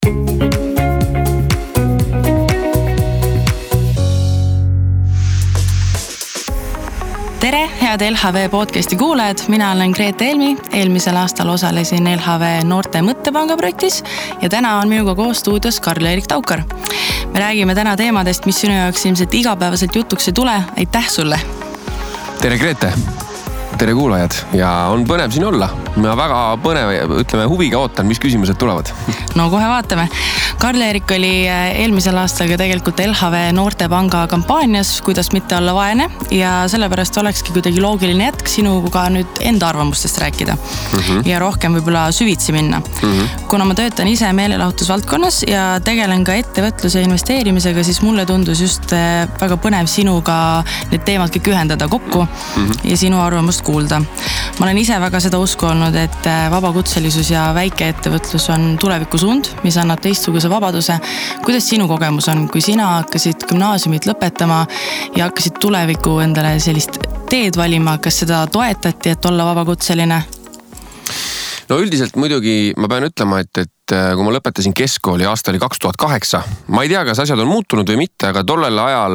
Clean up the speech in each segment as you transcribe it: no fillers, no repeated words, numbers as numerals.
Tere, head LHV podcasti kuulajad, mina olen Grete Helmi, eelmisel aastal osalesin LHV Noorte Mõttepanga projektis ja täna on minuga koos stuudios Karl-Erik Taukar. Me räägime täna teemadest, mis sinu jaoks ilmselt igapäevaselt jutuks ei tule. Aitäh sulle! Tere Grete! Tere kuulajad ja on põnev siin olla. Ma väga põnev, huviga ootan, mis küsimused tulevad. No kohe vaatame. Karl-Erik oli eelmisel aastal tegelikult LHV Noortepanga kampaanias, kuidas mitte olla vaene ja sellepärast olekski kuidagi loogiline jätk sinuga nüüd enda arvamustest rääkida ja rohkem võib-olla süvitsi minna. Kuna ma töötan ise meelelahutusvaldkonnas ja tegelen ka ettevõtluse investeerimisega, siis mulle tundus just väga põnev sinuga need teemad kõik ühendada kokku ja sinu arvamust kuulda. Ma olen ise väga seda usku olnud, et vabakutselisus ja väikeettevõtlus on tulevikusuund, mis annab teistsuguse vabaduse. Kuidas sinu kogemus on, kui sina hakkasid gümnaasiumit lõpetama ja hakkasid tuleviku endale sellist teed valima, kas seda toetati, et olla vabakutseline? No üldiselt muidugi ma pean ütlema, et kui ma lõpetasin keskkooli aasta oli 2008, ma ei tea, kas asjad on muutunud või mitte, aga tollel ajal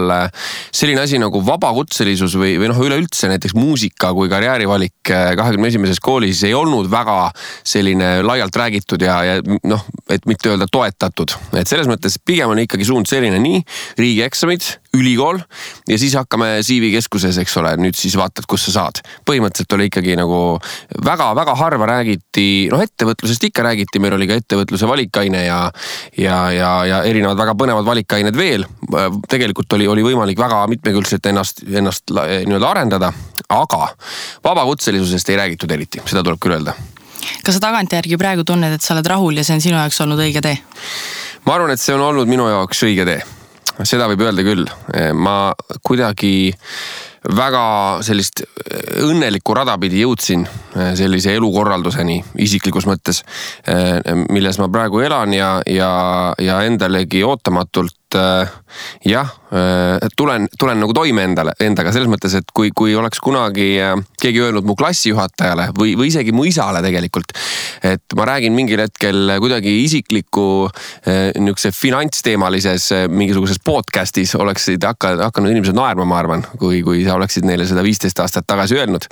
selline asi nagu vabakutselisus või üleüldse näiteks muusika kui karjäärivalik 21. koolis ei olnud väga selline laialt räägitud ja et mitte öelda toetatud. Et selles mõttes pigem on ikkagi suund selline nii riigieksamid, ülikool ja siis hakkame CV-keskuses, eks ole, nüüd siis vaatad, kus sa saad. Põhimõtteliselt oli ikkagi nagu väga harva räägiti, ettevõtlusest ikka räägiti, meil oli ka ettevõtluse valikaine ja erinevad väga põnevad valikained veel. Tegelikult oli võimalik väga mitmekülgselt ennast nii-öelda arendada, aga vabakutselisusest ei räägitud eriti, seda tuleb küll öelda. Kas sa tagantjärgi praegu tunned, et sa oled rahul ja see on sinu jaoks olnud õige tee? Ma arvan, et see on olnud minu jaoks õige tee. Seda võib öelda küll. Ma kuidagi väga sellist õnnelikku rada pidi jõudsin sellise elukorralduseni isiklikus mõttes, milles ma praegu elan ja endalegi ootamatult tulen nagu toime endaga selles mõttes, et kui oleks kunagi keegi öelnud mu klassijuhatajale või isegi mu isale tegelikult, et ma räägin mingil hetkel kuidagi isikliku niisuguse finantsteemalises mingisuguses podcastis oleksid hakanud inimesed naerma, ma arvan, kui sa oleksid neile seda 15 aastat tagasi öelnud.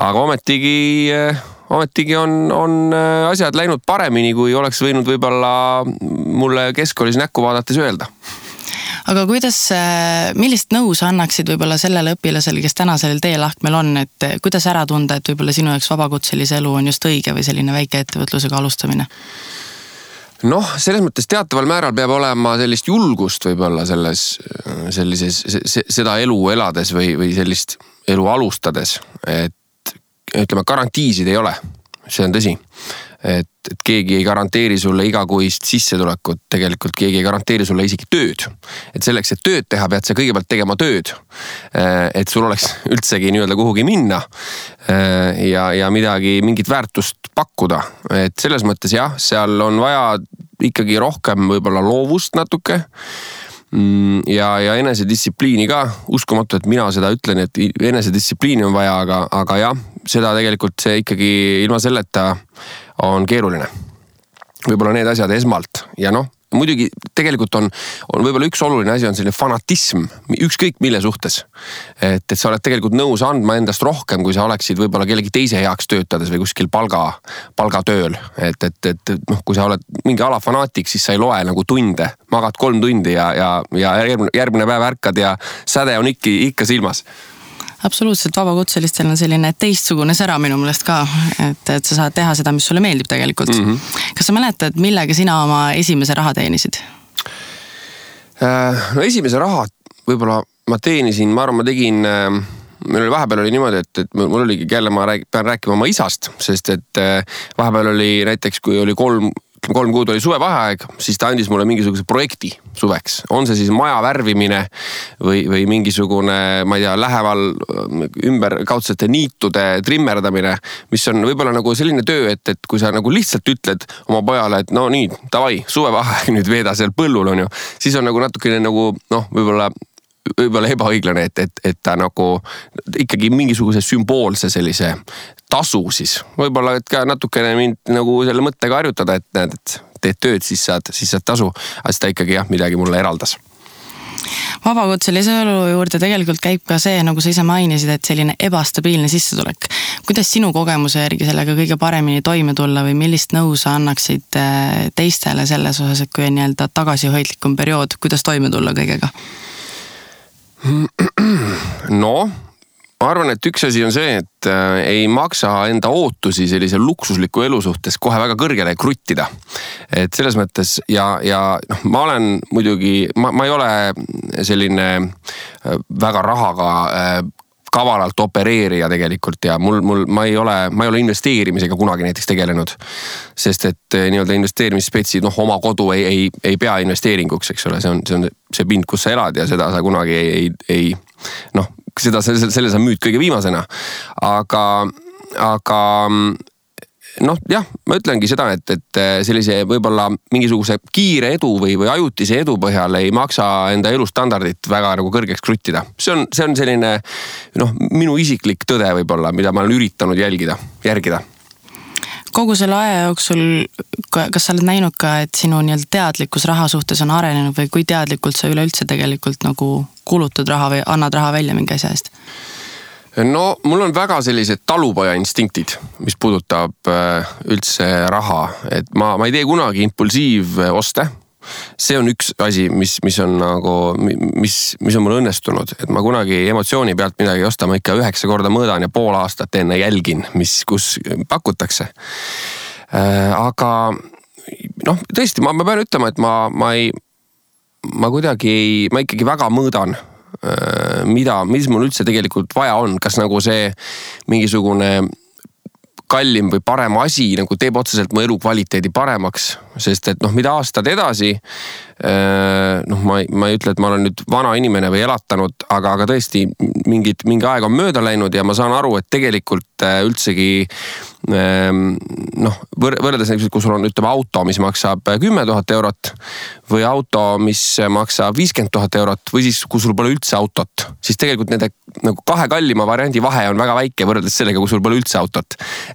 Aga ometigi on asjad läinud paremini, kui oleks võinud võib-olla mulle keskkoolis näkku vaadates öelda. Aga millist nõu sa annaksid võib-olla sellele õpilasele, kes täna sellel teelahkmel on, et kuidas ära tunda, et võib-olla sinu jaoks vabakutselise elu on just õige või selline väike ettevõtlusega alustamine? Selles mõttes teataval määral peab olema sellist julgust võib-olla seda elu elades või sellist elu alustades, et ütleme, garantiisid ei ole, see on tõsi. Et keegi ei garanteeri sulle igakuist sissetulekut, tegelikult keegi ei garanteeri sulle isegi tööd. Et selleks, et tööd teha, pead sa kõigepealt tegema tööd, et sul oleks üldsegi nii-öelda kuhugi minna ja mingit väärtust pakkuda. Et selles mõttes seal on vaja ikkagi rohkem võib-olla loovust natuke ja enesedistsipliini ka. Uskumatu, et mina seda ütlen, et enesedistsipliini on vaja, aga jah, seda tegelikult see ikkagi ilma selleta on keeruline. Võib-olla need asjad esmalt ja muidugi tegelikult on võib-olla üks oluline asi on selline fanatism, ükskõik mille suhtes. Et sa oled tegelikult nõus andma endast rohkem, kui sa oleksid võib-olla kellegi teise heaks töötades või kuskil palgatööl. Et kui sa oled mingi alafanaatik, siis sa ei loe nagu tunde, magad 3 tundi ja järgmine päev ärkad ja säde on ikka silmas. Absoluutselt, vabakutselistel on selline teistsugune sära minu meelest ka, et sa saad teha seda, mis sulle meeldib tegelikult. Kas sa mäletad, millega sina oma esimese raha teenisid? Esimese raha võib-olla ma teenisin, ma arvan, ma tegin, meil oli vahepeal oli niimoodi, et mul oligi jälle ma pean rääkima oma isast, sest et vahepeal oli näiteks, kui oli 3 kuud oli suvevaheaeg, siis ta andis mulle mingisuguse projekti suveks. On see siis maja värvimine või mingisugune, ma ei tea, läheval ümberkaudsete niitude trimmerdamine, mis on võib-olla nagu selline töö, et kui sa nagu lihtsalt ütled oma pojale, et nii, davai, suvevaheaeg nüüd veeda seal põllul on ju, siis on nagu natukene nagu, võib-olla ebaõiglane, et ta nagu ikkagi mingisuguse sümboolse sellise tasu siis. Võib-olla et ka natukene mind nagu selle mõttega harjutada, et näed, et teed tööd, siis saad tasu, aga siis ta ikkagi midagi mulle eraldas. Vabakutselise elu juurde tegelikult käib ka see, nagu sa ise mainisid, et selline ebastabiilne sissetulek. Kuidas sinu kogemuse järgi sellega kõige paremini toime tulla või millist nõu sa annaksid teistele selles osas, et kui on nii-öelda tagasihoidlikum periood, kuidas toime tulla kõigega? No, ma arvan, et üks asi on see, et ei maksa enda ootusi sellise luksusliku elu suhtes kohe väga kõrgele kruttida. Et selles mõttes ja ma olen muidugi, ma ei ole selline väga rahaga kavalalt opereerija tegelikult ja ma ei ole investeerimisega kunagi näiteks tegelenud. Sest et nii-öelda investeerimisspetsid, oma kodu ei pea investeeringuks, eks ole, see on see pind, kus sa elad ja seda sa kunagi selle sa müüd kõige viimasena. Aga ma ütlengi seda, et sellise võib-olla mingisuguse kiire edu või ajutise edu põhjal ei maksa enda elustandardit väga nagu kõrgeks kruttida. See on selline minu isiklik tõde võib-olla, mida ma olen üritanud järgida. Kogu selle aja jooksul, kas sa oled näinud ka, et sinu nii-öelda teadlikkus raha suhtes on arenenud või kui teadlikult sa üleüldse tegelikult nagu kulutad raha või annad raha välja mingi asja eest? No mul on väga sellised talupoja instinktid, mis puudutab üldse raha, et ma ei tee kunagi impulsiivoste. See on üks asi, mis on mul õnnestunud, et ma kunagi emotsiooni pealt midagi ei osta, ma ikka 9 korda mõõdan ja pool aastat enne jälgin, kus pakutakse. Aga tõesti, ma pean ütlema, et ma ikkagi väga mõõdan, mis mul üldse tegelikult vaja on, kas nagu see mingisugune kallim või parem asi nagu teeb otseselt mu elukvaliteedi paremaks, sest et mida aastad edasi, ma ei ütle, et ma olen nüüd vana inimene või elatanud, aga tõesti mingi aeg on mööda läinud ja ma saan aru, et tegelikult üldsegi võrreldes näiteks, kui sul on auto, mis maksab 10 000 eurot või auto, mis maksab 50 000 eurot või siis kui sul pole üldse autot, siis tegelikult nende nagu 2 kallima variandi vahe on väga väike võrreldes sellega, kui sul pole üldse autot.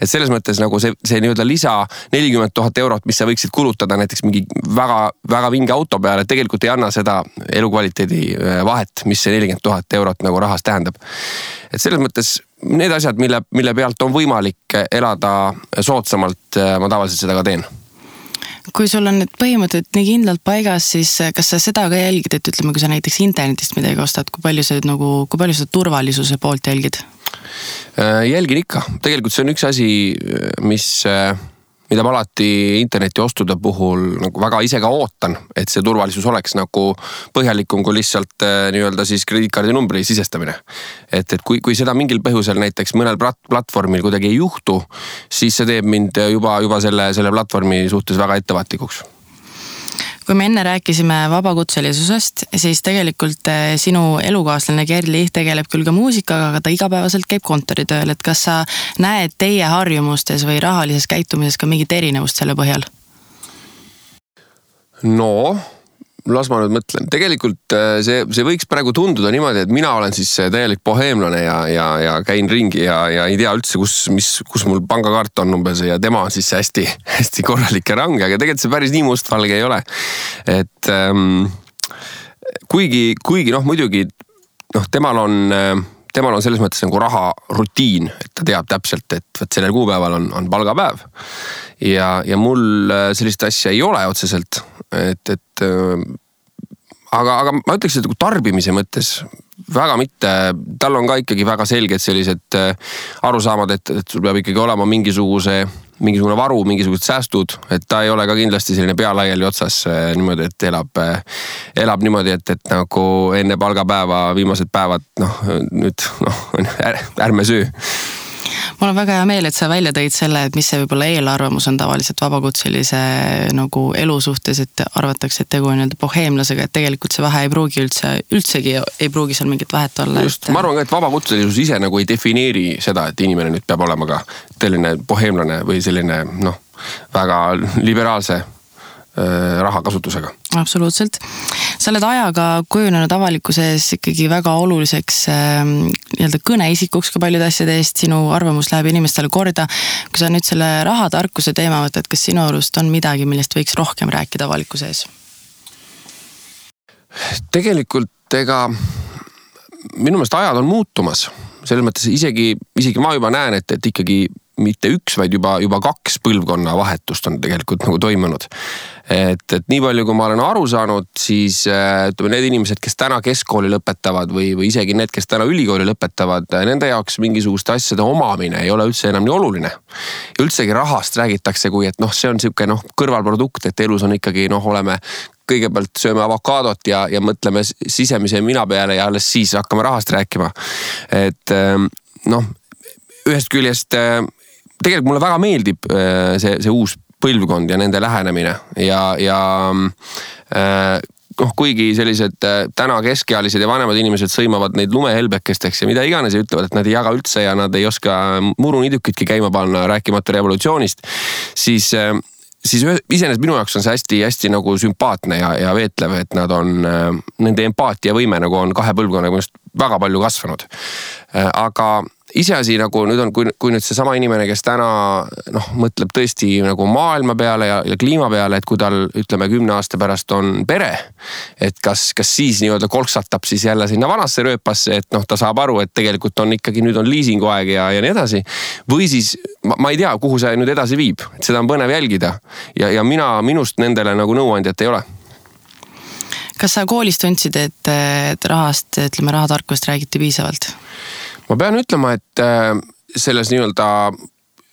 Et selles mõttes nagu see nii-öelda lisa 40 000 eurot, mis sa võiksid kulutada näiteks mingi väga, väga vinge auto peale, tegelikult ei anna seda elukvaliteedi vahet, mis see 40 000 eurot nagu rahas tähendab. Et selles mõttes need asjad, mille pealt on võimalik elada soodsamalt, ma tavaliselt seda ka teen. Kui sul on need põhimõtted nii kindlalt paigas, siis kas sa seda ka jälgid, et ütleme, kui sa näiteks internetist midagi ostad, kui palju sa turvalisuse poolt jälgid? Jälgin ikka. Tegelikult see on üks asi, mida ma alati interneti ostude puhul nagu väga ise ka ootan, et see turvalisus oleks nagu põhjalikum kui lihtsalt nii-öelda siis krediitkaardi numbri sisestamine. Et kui seda mingil põhjusel näiteks mõnel platvormil kuidagi ei juhtu, siis see teeb mind juba selle platvormi suhtes väga ettevaatlikuks. Kui me enne rääkisime vabakutselisusest, siis tegelikult sinu elukaaslane Kerli tegeleb küll ka muusikaga, aga ta igapäevaselt käib kontoritööl. Et kas sa näed teie harjumustes või rahalises käitumises ka mingit erinevust selle põhjal? No, las ma nüüd mõtlen. Tegelikult see võiks praegu tunduda niimoodi, et mina olen siis täielik boheemlane ja käin ringi ja ei tea üldse, kus mul pangakaart on umbes ja tema on siis hästi, hästi korralik ja range, aga tegelikult see päris nii mustvalge ei ole. Et kuigi muidugi temal on selles mõttes nagu raha rutiin, et ta teab täpselt, et sellel kuupäeval on palgapäev ja mul sellist asja ei ole otseselt. Aga ma ütleks, et tarbimise mõttes väga mitte, tal on ka ikkagi väga selged sellised arusaamad, et sul peab ikkagi olema mingisugune varu, mingisugused säästud, et ta ei ole ka kindlasti selline pealaiali otsas niimoodi, et elab niimoodi, et nagu enne palgapäeva viimased päevad, ärme söö. Mul on väga hea meel, et sa välja tõid selle, et mis see võib-olla eelarvamus on tavaliselt vabakutselise nagu elu suhtes, et arvatakse, et tegu on boheemlasega, et tegelikult see vahe ei pruugi üldsegi ei pruugi seal mingit vahet olla. Just, ma arvan ka, et vabakutselisus ise nagu ei defineeri seda, et inimene nüüd peab olema ka selline boheemlane või selline väga liberaalse rahakasutusega. Absoluutselt. sa oled ajaga kujunenud avalikkuses ikkagi väga oluliseks nii-öelda kõneisikuks ka paljude asjade eest, sinu arvamus läheb inimestele korda. Kui sa nüüd selle rahatarkuse teema võtad, kas sinu arust on midagi, millest võiks rohkem rääkida avalikkuse ees? Tegelikult minu meelest ajad on muutumas. Selles mõttes isegi ma juba näen, et ikkagi mitte üks, vaid juba 2 põlvkonna vahetust on tegelikult nagu toimunud. Et nii palju, kui ma olen aru saanud, siis need inimesed, kes täna keskkooli lõpetavad või isegi need, kes täna ülikooli lõpetavad, nende jaoks mingisuguste asjade omamine ei ole üldse enam nii oluline. Ja üldsegi rahast räägitakse, kui et see on siuke kõrvalprodukt, et elus on ikkagi oleme kõigepealt sööme avokaadot ja mõtleme sisemise mina peale ja alles siis hakkame rahast rääkima. Et ühest küljest tegelikult mulle väga meeldib see uus põlvkond ja nende lähenemine ja kuigi sellised täna keskealised ja vanemad inimesed sõimavad neid lumehelbekesteks ja mida iganes ja ütlevad, et nad ei jaga üldse ja nad ei oska murunidukitki käima panna, rääkimata revolutsioonist, siis iseenesest minu jaoks on see hästi nagu sümpaatne ja veetlev, et nad on, nende empaatiavõime nagu on 2 põlvkonnaga väga palju kasvanud. Aga iseasi nagu nüüd on, kui nüüd see sama inimene, kes täna mõtleb tõesti nagu maailma peale ja kliima peale, et kui tal ütleme 10 aasta pärast on pere, et kas siis nii-öelda kolksatab siis jälle sinna vanasse rööpasse, et ta saab aru, et tegelikult on ikkagi nüüd on liisinguaeg ja nii edasi. Või siis ma ei tea, kuhu see nüüd edasi viib, et seda on põnev jälgida ja minust nendele nagu nõuandjat ei ole. Kas sa koolis tundsid, et rahatarkust räägiti piisavalt? Ma pean ütlema, et selles nii-öelda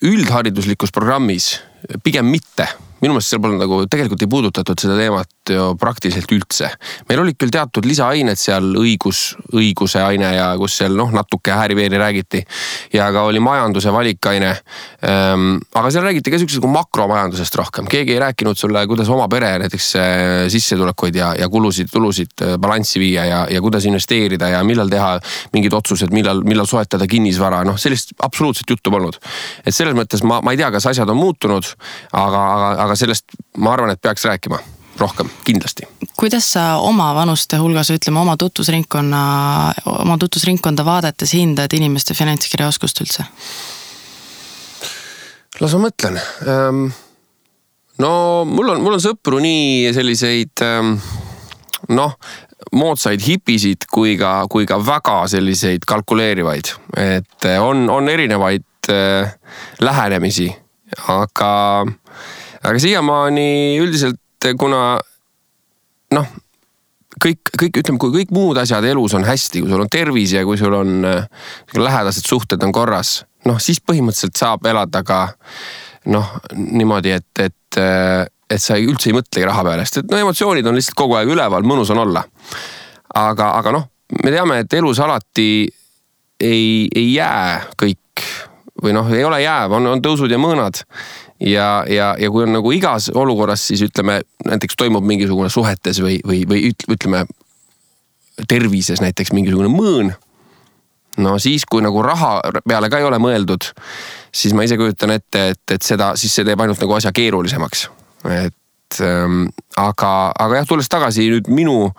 üldhariduslikus programmis pigem mitte. Minu meelest seal pole nagu tegelikult ei puudutatud seda teemat ju praktiliselt üldse. Meil olid küll teatud lisaained seal õiguse aine ja kus seal natuke hääriveeri räägiti ja ka oli majanduse valikaine. Aga seal räägiti ka sellisest makromajandusest rohkem. Keegi ei rääkinud sulle, kuidas oma pere näiteks sissetulekuid ja tulusid balanssi viia ja kuidas investeerida ja millal teha mingid otsused, millal soetada kinnisvara. Sellist absoluutselt juttu polnud. Et selles mõttes ma ei tea, kas asjad on muutunud, aga sellest ma arvan, et peaks rääkima rohkem, kindlasti. Kuidas sa oma vanuste hulgas, ütleme oma tutvusringkonda vaadates hindad inimeste finantskirjaoskust üldse? Las ma mõtlen. Mul on sõpru nii selliseid moodsaid hipisid kui ka väga selliseid kalkuleerivaid. Et on erinevaid lähenemisi, aga siiamaani üldiselt, kuna ütleme, kui kõik muud asjad elus on hästi, kui sul on tervis ja kui sul on lähedased suhted on korras, siis põhimõtteliselt saab elada ka niimoodi, et sa üldse ei mõtlegi raha peale, sest et emotsioonid on lihtsalt kogu aeg üleval, mõnus on olla. Aga me teame, et elus alati ei jää kõik või ei ole jääv, on tõusud ja mõõnad. Ja kui on nagu igas olukorras, siis ütleme, näiteks toimub mingisugune suhetes või ütleme tervises näiteks mingisugune mõõn. Siis kui nagu raha peale ka ei ole mõeldud, siis ma ise kujutan ette, et siis see teeb ainult nagu asja keerulisemaks. Aga jah, tulles tagasi nüüd minu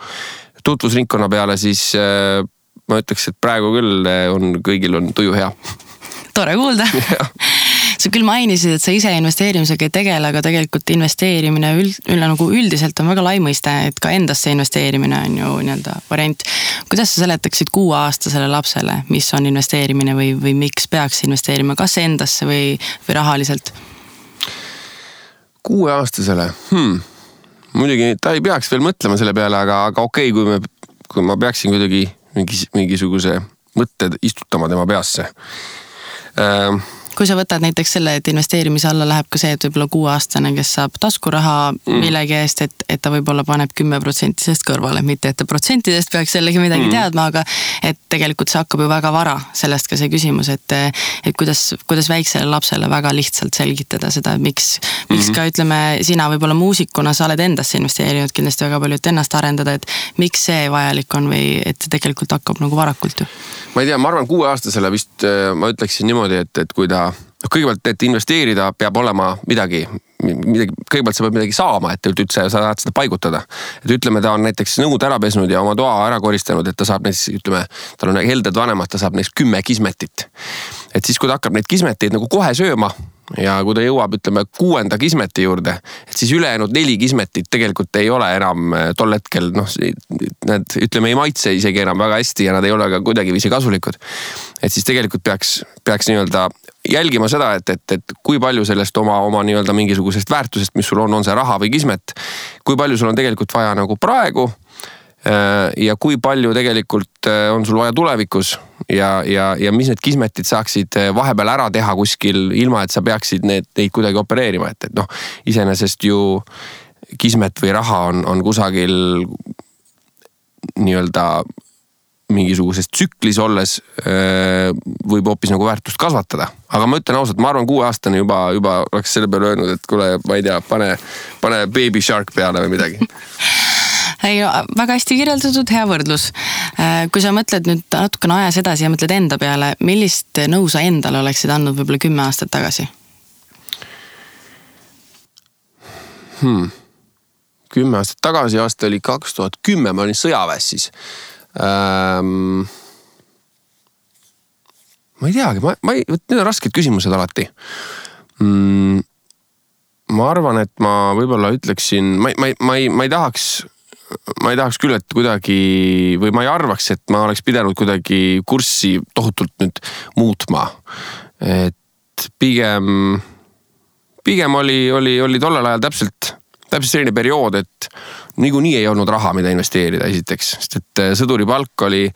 tutvusringkonna peale, siis ma ütleks, et praegu küll kõigil on tuju hea. Tore kuulda. Sa küll mainisid, et sa ise investeerimisega ei tegele, aga tegelikult investeerimine nagu üldiselt on väga lai mõiste, et ka endasse investeerimine on ju nii-öelda variant. Kuidas sa seletaksid 6-aastasele lapsele, mis on investeerimine või miks peaks investeerima, kas endasse või rahaliselt? 6-aastasele? Muidugi ta ei peaks veel mõtlema selle peale, aga okei, kui ma peaksin kuidagi mingisuguse mõtted istutama tema peasse. Kui sa võtad näiteks selle, et investeerimise alla läheb ka see, et võib-olla 6-aastane, kes saab taskuraha millegi eest, et ta võib-olla paneb 10% sest kõrvale, mitte et ta protsentidest peaks sellegi midagi teadma, aga et tegelikult see hakkab ju väga vara, sellest ka see küsimus, et kuidas väiksele lapsele väga lihtsalt selgitada seda, miks ka ütleme, sina võib-olla muusikuna sa oled endasse investeerinud kindlasti väga palju, et ennast arendada, et miks see vajalik on või et tegelikult hakkab nagu varakult ju? Ma ei tea, ma arvan 6-aastasele vist ma ütleksin niimoodi, et kui ta kõigepealt, et investeerida peab olema midagi, midagi, kõigepealt sa pead midagi saama, et üldse sa saad seda paigutada. Et ütleme, ta on näiteks nõud ära pesnud ja oma toa ära koristanud, et ta saab näiteks, ütleme, tal on helded vanemad, ta saab neist 10 kismetit. Et siis, kui ta hakkab neid kismeteid nagu kohe sööma, ja kui ta jõuab, ütleme, 6. kismeti juurde, et siis ülejäänud 4 kismetit tegelikult ei ole enam tol hetkel, need, ütleme, ei maitse isegi enam väga hästi ja nad ei ole ka kuidagi viisi kasulikud. Et siis tegelikult peaks nii-öelda jälgima seda, et kui palju sellest oma nii-öelda mingisugusest väärtusest, mis sul on see raha või kismet, kui palju sul on tegelikult vaja nagu praegu ja kui palju tegelikult on sul vaja tulevikus ja mis need kismetid saaksid vahepeal ära teha kuskil, ilma et sa peaksid neid kuidagi opereerima, et iseenesest ju kismet või raha on kusagil nii-öelda mingisuguses tsüklis olles võib hoopis nagu väärtust kasvatada. Aga ma ütlen ausalt, ma arvan 6-aastane juba oleks selle peale öelnud, et kuule, ma ei tea, pane Baby Shark peale või midagi. Ei, väga hästi kirjeldatud, hea võrdlus. Kui sa mõtled nüüd natukene ajas edasi ja mõtled enda peale, millist nõu sa endale oleksid andnud võib-olla 10 aastat tagasi? 10 aastat tagasi, aasta oli 2010, ma olin sõjaväes siis. Ma ei teagi, need on rasked küsimused alati. Ma arvan, et ma võib-olla ütleksin, ma ei tahaks küll, et kuidagi, või ma ei arvaks, et ma oleks pidanud kuidagi kurssi tohutult nüüd muutma. Et pigem oli tollel ajal täpselt selline periood, et niikuinii ei olnud raha, mida investeerida esiteks, sest et sõduri palk oli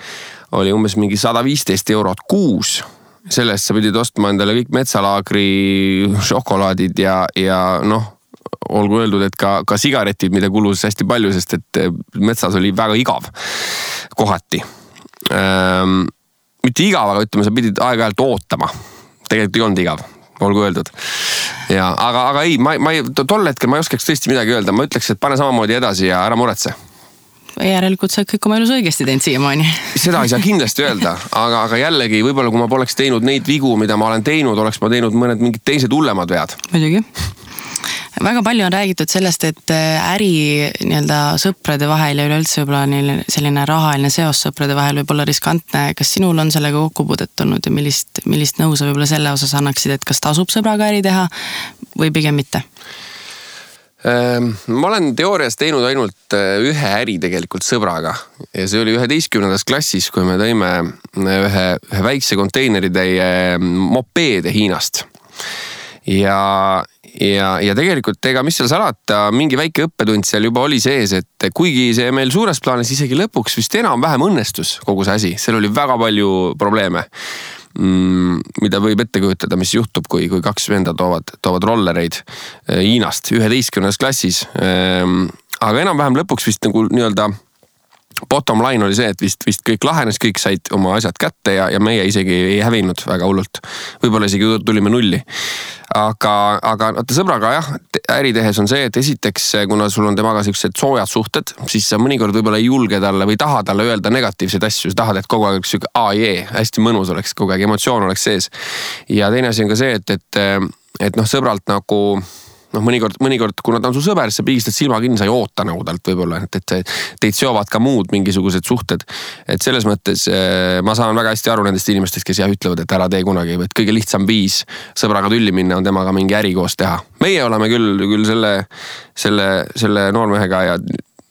umbes mingi 115 eurot kuus. Sellest sa pidid ostma endale kõik metsalaagri šokolaadid ja olgu öeldud, et ka sigaretid, mida kulus hästi palju, sest et metsas oli väga igav kohati. Mitte igav, aga ütleme, sa pidid aeg-ajalt ootama. Tegelikult ei olnud igav, olgu öeldud. Ja, aga ei, tol hetkel ma ei oskaks tõesti midagi öelda. Ma ütleks, et pane samamoodi edasi ja ära muretse. Järelikult sa kõik oma elus õigesti teinud siiamaani. Seda ei saa kindlasti öelda, aga jällegi, võib-olla kui ma poleks teinud neid vigu, mida ma olen teinud, oleks ma teinud mõned mingid teised hullemad vead. Muidugi. Väga palju on räägitud sellest, et äri nii-öelda sõprade vahel ja üleüldse võib-olla selline rahaline seos sõprade vahel võib olla riskantne. Kas sinul on sellega kokkupuudet tulnud ja millist nõu sa võib-olla selle osas annaksid, et kas tasub sõbraga äri teha või pigem mitte? Ma olen teoorias teinud ainult ühe äri tegelikult sõbraga ja see oli 11. klassis, kui me tõime ühe väikse konteineritäie mopeede Hiinast. Ja tegelikult mis seal salata, mingi väike õppetund seal juba oli sees, et kuigi see meil suures plaanis isegi lõpuks vist enam-vähem õnnestus kogu see asi, seal oli väga palju probleeme, mida võib ette kujutada, mis juhtub, kui 2 venda toovad rollereid Hiinast 11. klassis. Aga enam-vähem lõpuks vist nagu nii-öelda bottom line oli see, et vist kõik lahenes, kõik said oma asjad kätte ja meie isegi ei hävinud väga hullult. Võib-olla isegi tulime nulli. Aga sõbraga jah, äri tehes on see, et esiteks, kuna sul on temaga sellised soojad suhted, siis sa mõnikord võib-olla ei julge talle või taha talle öelda negatiivseid asju. Sa tahad, et kogu aeg oleks hästi mõnus oleks, kogu aeg emotsioon oleks sees. Ja teine asi on ka see, et sõbralt nagu mõnikord, kuna ta on su sõber, sa pigistad silma kinni, sa ei oota nagu talt võib-olla, et teid seovad ka muud mingisugused suhted. Et selles mõttes ma saan väga hästi aru nendest inimestest, kes ütlevad, et ära tee kunagi, et kõige lihtsam viis sõbraga tülli minna on temaga mingi äri koos teha. Meie oleme küll selle noormehega ja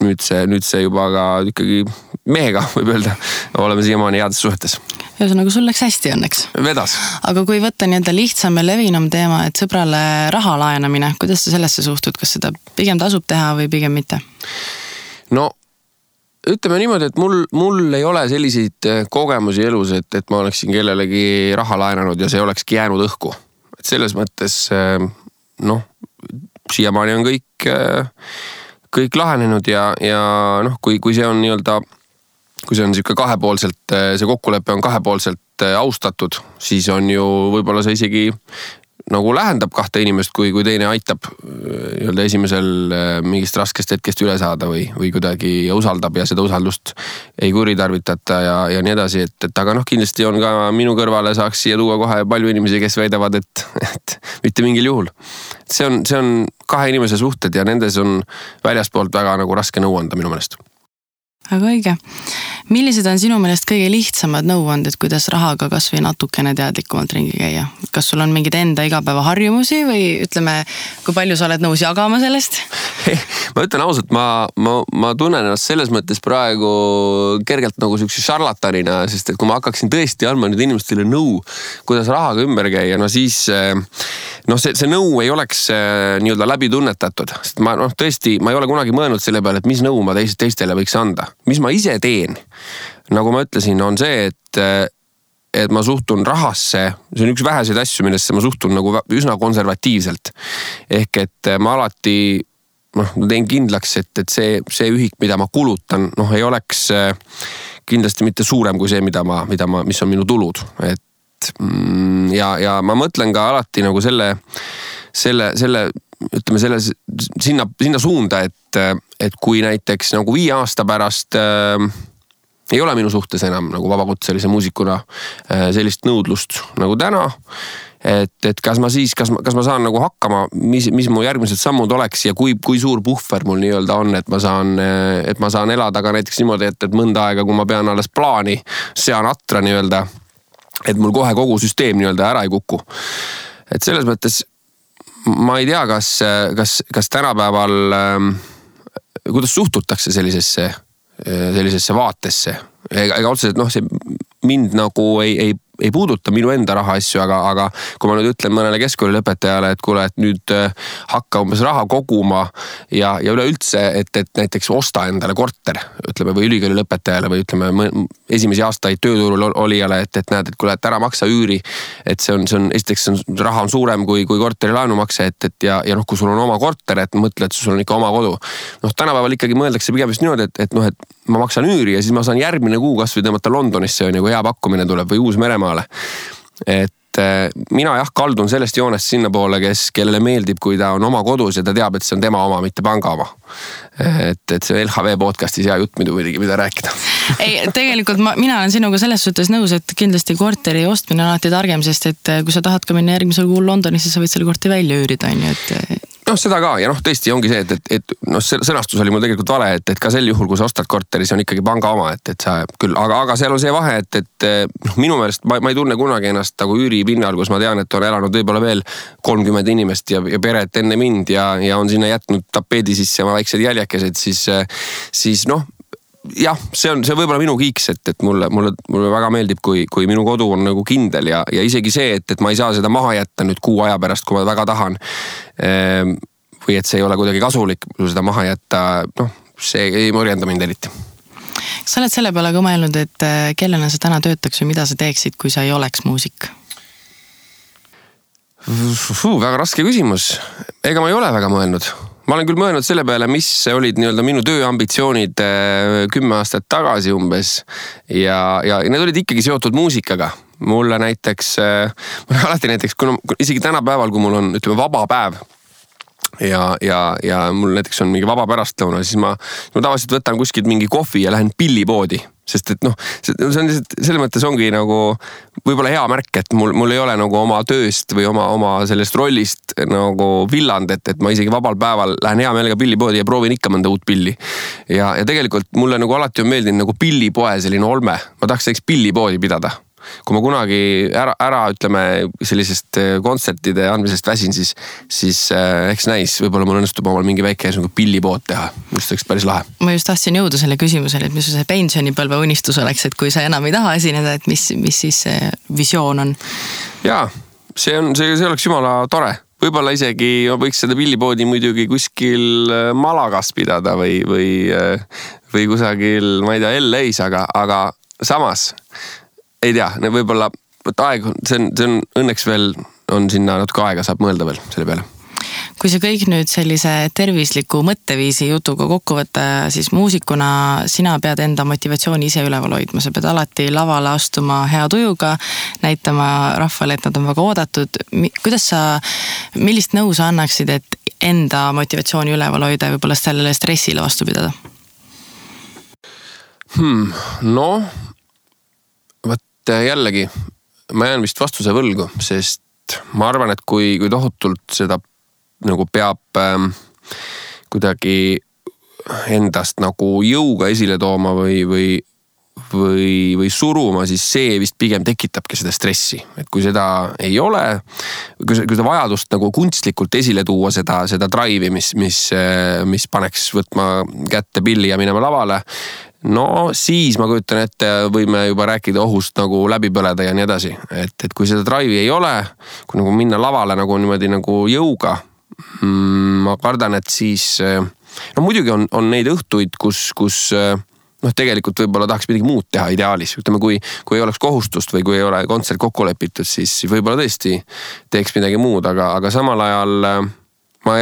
nüüd see juba ka ikkagi mehega võib öelda, oleme siiamaani heades suhetes. Ühesõnaga, sul läks hästi õnneks. Vedas. Aga kui võtta nii-öelda lihtsam ja levinum teema, et sõbrale raha laenamine, kuidas sa sellesse suhtud, kas seda pigem tasub teha või pigem mitte? No, ütleme niimoodi, et mul ei ole selliseid kogemusi elus, et ma oleksin kellelegi raha laenanud ja see olekski jäänud õhku. Et selles mõttes, siiamaani on kõik lahenenud ja kui see on nii-öelda, kui see on siuke kahepoolselt, see kokkulepe on kahepoolselt austatud, siis on ju võib-olla see isegi nagu lähendab kahte inimest, kui teine aitab nii-öelda esimesel mingist raskest hetkest üle saada või kuidagi usaldab ja seda usaldust ei kuritarvitata ja nii edasi, et aga noh, kindlasti on ka minu kõrvale saaks siia tuua kohe palju inimesi, kes väidavad, et mitte mingil juhul. See on kahe inimese suhted ja nendes on väljaspoolt väga nagu raske nõu anda minu meelest. Aga õige. Millised on sinu meelest kõige lihtsamad nõuanded, kuidas rahaga kas või natukene teadlikumalt ringi käia? Kas sul on mingid enda igapäeva harjumusi või ütleme, kui palju sa oled nõus jagama sellest? Ma ütlen ausalt, ma tunnen ennast selles mõttes praegu kergelt nagu sükse šarlatanina, sest et kui ma hakkaksin tõesti andma nüüd inimestele nõu, kuidas rahaga ümber käia, no siis see nõu ei oleks nii-öelda läbi tunnetatud. Sest ma tõesti, ma ei ole kunagi mõelnud selle peale, et mis nõu ma teistele võiks anda. Mis ma ise teen, nagu ma ütlesin, on see, et ma suhtun rahasse, see on üks väheseid asju, millesse ma suhtun nagu üsna konservatiivselt. Ehk et ma alati teen kindlaks, et see ühik, mida ma kulutan, ei oleks kindlasti mitte suurem kui see, mis on minu tulud. Ja ma mõtlen ka alati nagu selle ütleme sinna suunda, et kui näiteks nagu 5 aasta pärast ei ole minu suhtes enam nagu vabakutselise muusikuna sellist nõudlust nagu täna, et kas ma saan nagu hakkama, mis mu järgmised sammud oleks ja kui suur puhver mul nii-öelda on, et ma saan elada ka näiteks niimoodi, et mõnda aega, kui ma pean alles plaani, sean atra nii-öelda, et mul kohe kogu süsteem nii-öelda ära ei kuku. Et selles mõttes ma ei tea, kas tänapäeval, kuidas suhtutakse sellisesse vaatesse. Ega otseselt, see mind nagu ei puuduta minu enda raha asju, aga kui ma nüüd ütlen mõnele keskkoolilõpetajale, et kuule, et nüüd hakka umbes raha koguma ja üleüldse, et näiteks osta endale korter, ütleme, või ülikoolilõpetajale või ütleme esimesi aastaid tööturul olijale, et näed, et kuule, et ära maksa üüri, et see on esiteks raha on suurem kui korteri laenumakse, ja kui sul on oma korter, et mõtle, et sul on ikka oma kodu. Tänapäeval ikkagi mõeldakse pigem just niimoodi, et ma maksan üüri ja siis ma saan järgmine kuu kas või tõmmata Londonisse, kui hea pakkumine tuleb või Uus-Meremaale. Et mina kaldun sellest joonest sinna poole, kellele meeldib, kui ta on oma kodus ja ta teab, et see on tema oma, mitte panga oma. Et see LHV podcastis hea jutt muidugi, mida rääkida. Ei, tegelikult mina olen sinuga selles suhtes nõus, et kindlasti korteri ostmine on alati targem, sest et kui sa tahad ka minna järgmisel kuul Londonisse, sa võid selle korteri välja üürida, et seda ka ja tõesti ongi see, et sõnastus oli mul tegelikult vale, et ka sel juhul, kui sa ostad korteri, see on ikkagi panga oma, et sa küll, aga seal on see vahe, et minu meelest ma ei tunne kunagi ennast nagu üüripinnal, kus ma tean, et on elanud võib-olla veel 30 inimest ja peret enne mind ja on sinna jätnud tapeedi sisse oma väiksed jäljakesed, siis jah, see on võib-olla minu kiiks, et mulle väga meeldib, kui minu kodu on nagu kindel ja isegi see, et ma ei saa seda maha jätta nüüd kuu aja pärast, kui ma väga tahan. Või et see ei ole kuidagi kasulik seda maha jätta, see ei morjenda mind eriti. Sa oled selle peale ka mõelnud, et kellena sa täna töötaks või mida sa teeksid, kui sa ei oleks muusik? Väga raske küsimus. Ega ma ei ole väga mõelnud. Ma olen küll mõelnud selle peale, mis olid nii-öelda minu tööambitsioonid 10 aastat tagasi umbes ja need olid ikkagi seotud muusikaga. Mulle näiteks, alati näiteks, isegi tänapäeval, kui mul on vaba päev ja mul näiteks on mingi vaba pärastlõuna, siis ma tavaliselt võtan kuskilt mingi kohvi ja lähen pillipoodi. Sest et see on selles mõttes ongi nagu võib-olla hea märk, et mul ei ole nagu oma tööst või oma sellest rollist nagu villand, et ma isegi vabal päeval lähen hea meelega pillipoodi ja proovin ikka mõnda uut pilli. Ja tegelikult mulle nagu alati on meeldinud nagu pillipoe selline olme. Ma tahaks pillipoodi pidada. Kui ma kunagi ära ütleme sellisest kontsertide andmisest väsin, siis eks näis, võib-olla mul õnnestub omal mingi väike pillipood teha. Just oleks päris lahe. Ma just tahtsin jõuda selle küsimusele, et mis see pensionipõlve unistus oleks, et kui sa enam ei taha esineda, et mis siis see visioon on? Jaa, see oleks jumala tore. Võib-olla isegi võiks seda pillipoodi muidugi kuskil Malagas pidada või kusagil, ma ei tea, LA-s, aga samas ei tea, võib-olla aeg, see on õnneks veel, on sinna natuke aega, saab mõelda veel selle peale. kui see kõik nüüd sellise tervisliku mõtteviisi jutuga kokku võtta, siis muusikuna sina pead enda motivatsiooni ise üleval hoidma, sa pead alati lavale astuma hea tujuga, näitama rahvale, et nad on väga oodatud. Millist nõu sa annaksid, et enda motivatsiooni üleval hoida ja võib-olla sellele stressile vastu pidada? No, võt jällegi, ma jään vist vastuse võlgu, sest ma arvan, et kui tohutult seda nagu peab kuidagi endast nagu jõuga esile tooma või suruma, siis see vist pigem tekitabki seda stressi. Et kui seda ei ole, kui seda vajadust nagu kunstlikult esile tuua seda drive'i, mis paneks võtma kätte pilli ja minema lavale, no siis ma kujutan ette, võime juba rääkida ohust nagu läbi põleda ja nii edasi. Et kui seda drive'i ei ole, kui nagu minna lavale nagu niimoodi nagu jõuga, ma kardan, et siis, no muidugi on neid õhtuid, kus tegelikult võib-olla tahaks midagi muud teha ideaalis. Ütleme, kui ei oleks kohustust või kui ei ole kontsert kokku lepitud, siis võib-olla tõesti teeks midagi muud, aga samal ajal ma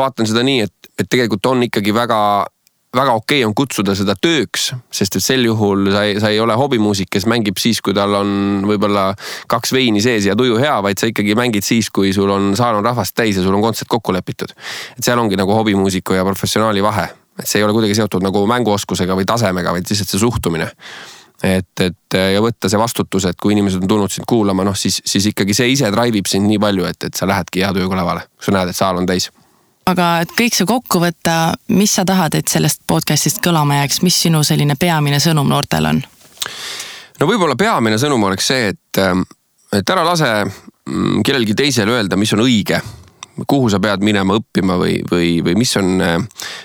vaatan seda nii, et tegelikult on ikkagi väga okei on kutsuda seda tööks, sest et sel juhul sa ei ole hobimuusik, kes mängib siis, kui tal on võib-olla 2 veini sees ja tuju hea, vaid sa ikkagi mängid siis, kui sul on saal on rahvast täis ja sul on kontsert kokku lepitud. Et seal ongi nagu hobimuusiku ja professionaali vahe. Et see ei ole kuidagi seotud nagu mänguoskusega või tasemega, vaid lihtsalt see suhtumine. Et ja võtta see vastutus, et kui inimesed on tulnud sind kuulama, siis ikkagi see ise drive'ib sind nii palju, et sa lähedki hea tujuga lavale, kui sa näed, et saal on täis. Aga et kõik see kokku võtta, mis sa tahad, et sellest podcastist kõlama jääks, mis sinu selline peamine sõnum noortel on? No võib-olla peamine sõnum oleks see, et ära lase kellelgi teisel öelda, mis on õige, kuhu sa pead minema õppima või mis on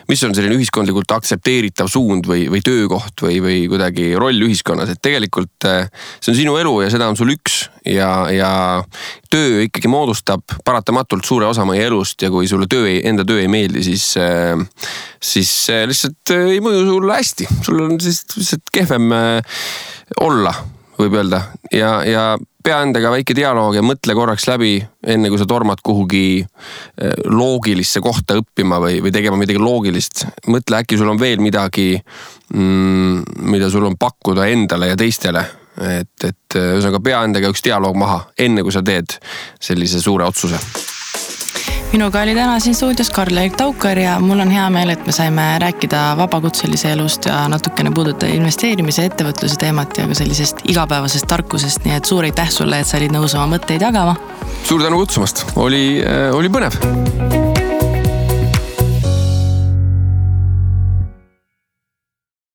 selline ühiskondlikult aktsepteeritav suund või töökoht või kuidagi roll ühiskonnas. Et tegelikult see on sinu elu ja seda on sul üks ja töö ikkagi moodustab paratamatult suure osa meie elust ja kui sulle enda töö ei meeldi, siis lihtsalt ei mõju sulle hästi. Sul on siis lihtsalt kehvem olla, võib öelda. Ja pea endaga väike dialoog ja mõtle korraks läbi, enne kui sa tormad kuhugi loogilisse kohta õppima või tegema midagi loogilist. Mõtle, äkki sul on veel midagi, mida sul on pakkuda endale ja teistele. Et ühesõnaga pea endaga üks dialoog maha, enne kui sa teed sellise suure otsuse. Minuga oli täna siin stuudios Karl-Erik Taukar ja mul on hea meel, et me saime rääkida vabakutselise elust ja natukene puudutada investeerimise ettevõtluse teemat ja ka sellisest igapäevasest tarkusest, nii et suur aitäh sulle, et sa olid nõus oma mõtteid jagama. Suur tänu kutsumast, oli põnev.